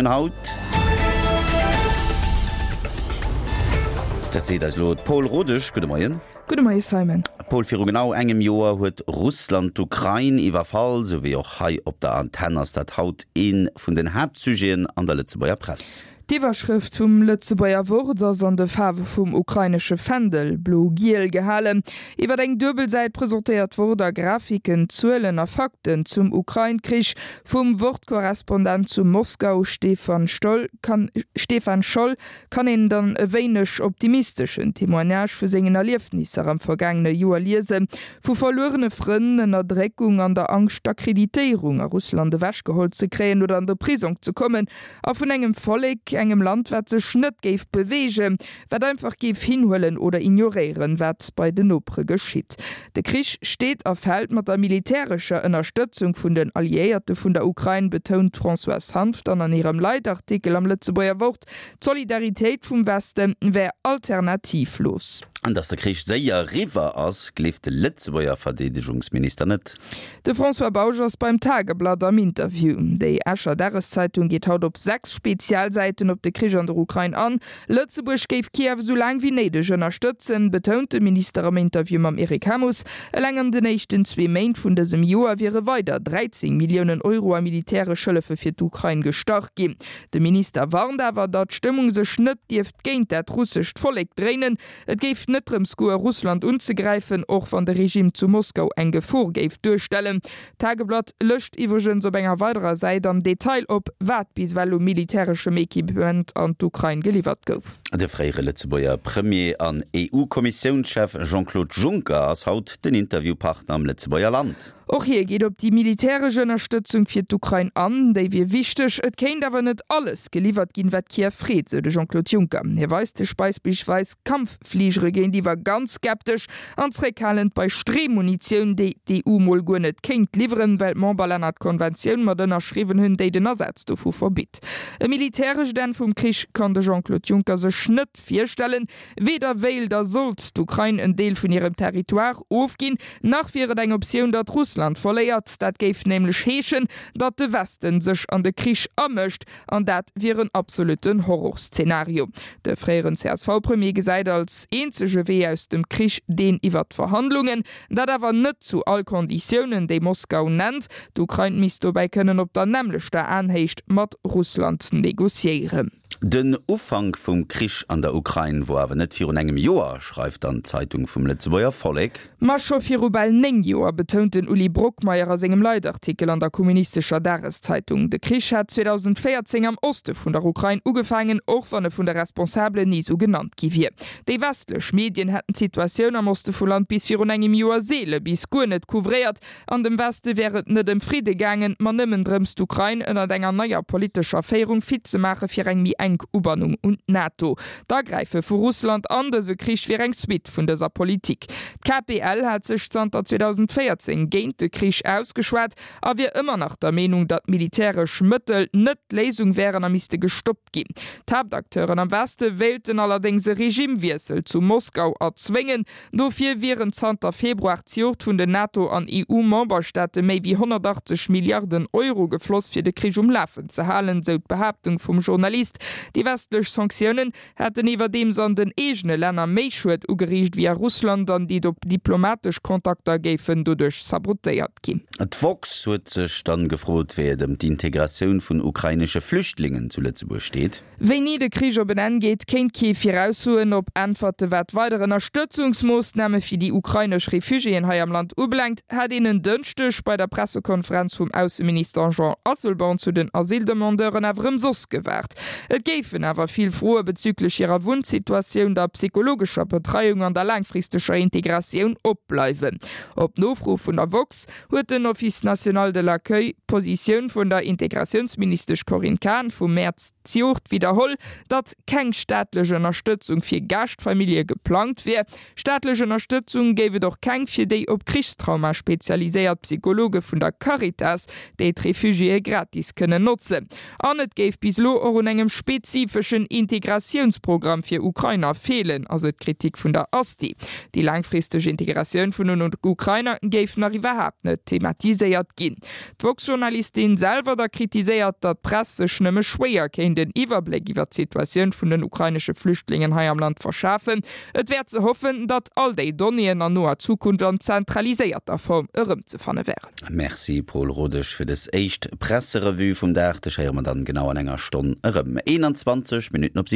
Haut. Dat seet eis elo d'Paul Rodesch. Gudde Moien. Gudde Moie Simon. Paul, viru genau engem Joer huet Russland d'Ukrain iwwerfall. Sou wéi och hei op der Antenn ass dat haut ee vun den Haaptsujeten an der Lëtzebuerger Press. D'Iwwerschrëft vum Lëtzebuerger Wort ass an de Faarwe vum ukrainesche Fändel, blo-giel, gehalen. Iwwer eng duebel Säit presentéiert d'Wort a Grafiken, Zuelen a Fakten zum Ukrain-Krich. Vum Wort-Korrespondent zu Moskau, Stefan Stoll, kann Stefan Scholl, kann een dann e wéineg optimisteschen Témoignage vu sengen Erliefnisser am vergaangene Joer liesen, vu verluerene Frënn, Ënnerdréckung an der Angscht d'Akkreditéierung a Russland ewechgeholl ze kréien oder an de Prisong ze kommen, A vun engem Vollek, engem Land, wat sech net géif beweegen, wat einfach géif hinhuelen oder ignoréieren, wat bei den Nopere geschitt. De Krich steet a fält mat der militärescher Ënnerstëtzung vun den Alliéierte vun der Ukrain, betount d'Françoise Hanff dann an hirem Leitartikel am Lëtzebuerger Wort. D'Solidaritéit vum Weste wär alternativlos. An datt de Krich séier eriwwer ass, gleeft de Lëtzebuerger Verdeedegungsminister net. De François Bausch ass beim Tageblatt am Interview. Déi Escher Dageszeitung geet haut op 6 Spezialsäiten op de Krich an der Ukrain an. Lëtzebuerg géif Kiew esou laang wéi néideg ënnerstëtzen, betount de Minister am Interview mam Eric Hamus. Eleng an den éischten zwee Méint vun dësem Joer wiere weider 13 Milliounen Euro a militäresch Hëllefe fir d'Ukrain gestach ginn. De Minister warnt awer, datt d'Stëmmung sech net dierft géint dat russescht Vollek dréinen. Et géif net drëms goe Russland unzegräifen, och wann de Regime zu Moskau eng Gefor géif duerstellen. D'Tageblatt lëscht iwwregens op enger weiderer Säit am Detail op, wat bis ewell u militäreschem Equipement an d'Ukrain geliwwert gouf. De fréiere Lëtzebuerger Premier an EU-Kommissiounschef Jean-Claude Juncker ass haut den Interviewpartner am Lëtzebuerger Land. Och hie geet op déi militäresch Ënnerstëtzung fir d'Ukrain an. Déi wier wichteg, et kéint awer net alles geliwwert ginn, wat Kiew freet, sou de Jean-Claude Juncker. Hie weist sech beispillsweis Kampffligere géintiwwer ganz skeptesch an zréckhalend bei Streemunitioun, déi d'EU mol guer net kéint liwweren, well d'Memberlänner d'Konventioun mat ënnerschriwwen hunn, déi den Asaz dovu verbitt. E militärescht Enn vum Krich kann de Jean-Claude Juncker sech net virstellen. Weder wéilt a sollt d'Ukrain en Deel vun hirem Territoire ofginn, nach wier et eng Optioun, datt Russland verléiert. Dat géif nämlech heeschen, datt de Westen sech an de Krich amëscht, an dat wier en absolutten Horrorszenario. De fréieren CSV-Premier gesäit als eenzege Wee aus dem Krich deen iwwer d'Verhandlungen. Dat awer net zu all Konditiounen, déi Moskau nennt. D'Ukrain misst dobäi kënnen op der nämmlechter Aenhéicht mat Russland negociéieren. Den Ufank vum Krich an der Ukrain wor awer net virun engem Joer, schreift dann d'Zeitung vum Lëtzebuerger Vollek. Ma scho viru bal 9 Joer, betount den Uli Brockmeyer a sengem Leitartikel an der kommunistescher Dageszeitung. De Krich hat 2014 am Oste vun der Ukrain ugefaangen, och wann e vun de Responsabelen ni sou genannt gi wier. Déi westlech Medien hätten d'Situatioun am Oste vum Land bis virun engem Joer seele bis guer net couvréiert. An dem Weste wär et net ëm Fridde gaangen, ma nëmmen drëms, d'Ukrain ënnert enger neier politescher Féierung fit ze maache fir eng méi enk Ubannung un d'NATO. D'Agräife vu Russland an dëse Krich wier eng Suite vun dëser Politik. D'KPL hat sech zanter 2014 géint de Krich ausgeschwat a wier ëmmer nach der Meenung, datt militäresch Mëttel net d'Léisung wären a misste gestoppt ginn. D'Haaptacteuren am Weste wéilten allerdéngs e Regimewiessel zu Moskau erzwéngen. Dofir wieren zanter Februar zejoert vun den NATO an EU-Memberstaate méi wéi 180 Milliarden Euro gefloss, fir de Krich um Lafen ze halen, sou d'Behaaptung vum Journalist. Déi westlech Sanktiounen hätten iwwerdeems an den eegene Länner méi Schued ugeriicht wéi a Russland an déi diplomatesch Kontakter géifen doduerch sabotéiert ginn. D'woxx huet sech dann gefrot, wéi et ëm d'Integratioun vun ukrainesche Flüchtlingen zu Lëtzebuerg steet. Wéini de Krich op en Enn geet, kéint kee viraussoen. Op Äntwerte wat weider Ënnerstëtzungsmoossname fir déi ukrainesch Refugiéen hei am Land ubelaangt, hat een en Dënschdeg bei der Pressekonferenz vum Ausseminister Jean Asselborn zu den Asyldemandeuren awer ëmsoss gewaart. Et géifen awer vill Froe bezüglech hirer Wunnsituatioun, der psychologescher Betreiung an der laangfristeger Integratioun opbleiwen. Op Nofro vun der woxx huet den Office national de l'accueil d'Positioun vun der Integratiounsministesch Corinne Cahen vum Mäerz zejoert widderholl, datt keng staatlech Ënnerstëtzung fir Gaaschtfamillje geplangt wier. Staatlech Ënnerstëtzung géif et och keng fir déi op Krichstrauma spezialiséiert Psychologe vun der Caritas, déi d'Refugiéë gratis kënnen notzen. An et géif bis elo och un engem. spezifeschen Integratiounsprogramm fir Ukrainer feelen, ass et d'Kritik vun der Asti. Déi laangfristeg Integratioun vun den Ukrainer géif nach iwwerhaapt net thematiséiert ginn. D'woxx-Journalistin selwer da kritiséiert, datt d'Press sech nëmme schwéier kéint en Iwwerbléck iwwer d'Situatioun vun den ukrainesche Flüchtlingen hei am Land verschafen. Et wär ze hoffen, datt all déi Donnéeën an noer Zukunft an zentraliséierter Form erëmzefanne wären. Merci Paul Rodesch fir des éischt Presserevue vum Dag. Dech héiere mer dann genau an enger Stonn erëm. 21 Minutten op 7.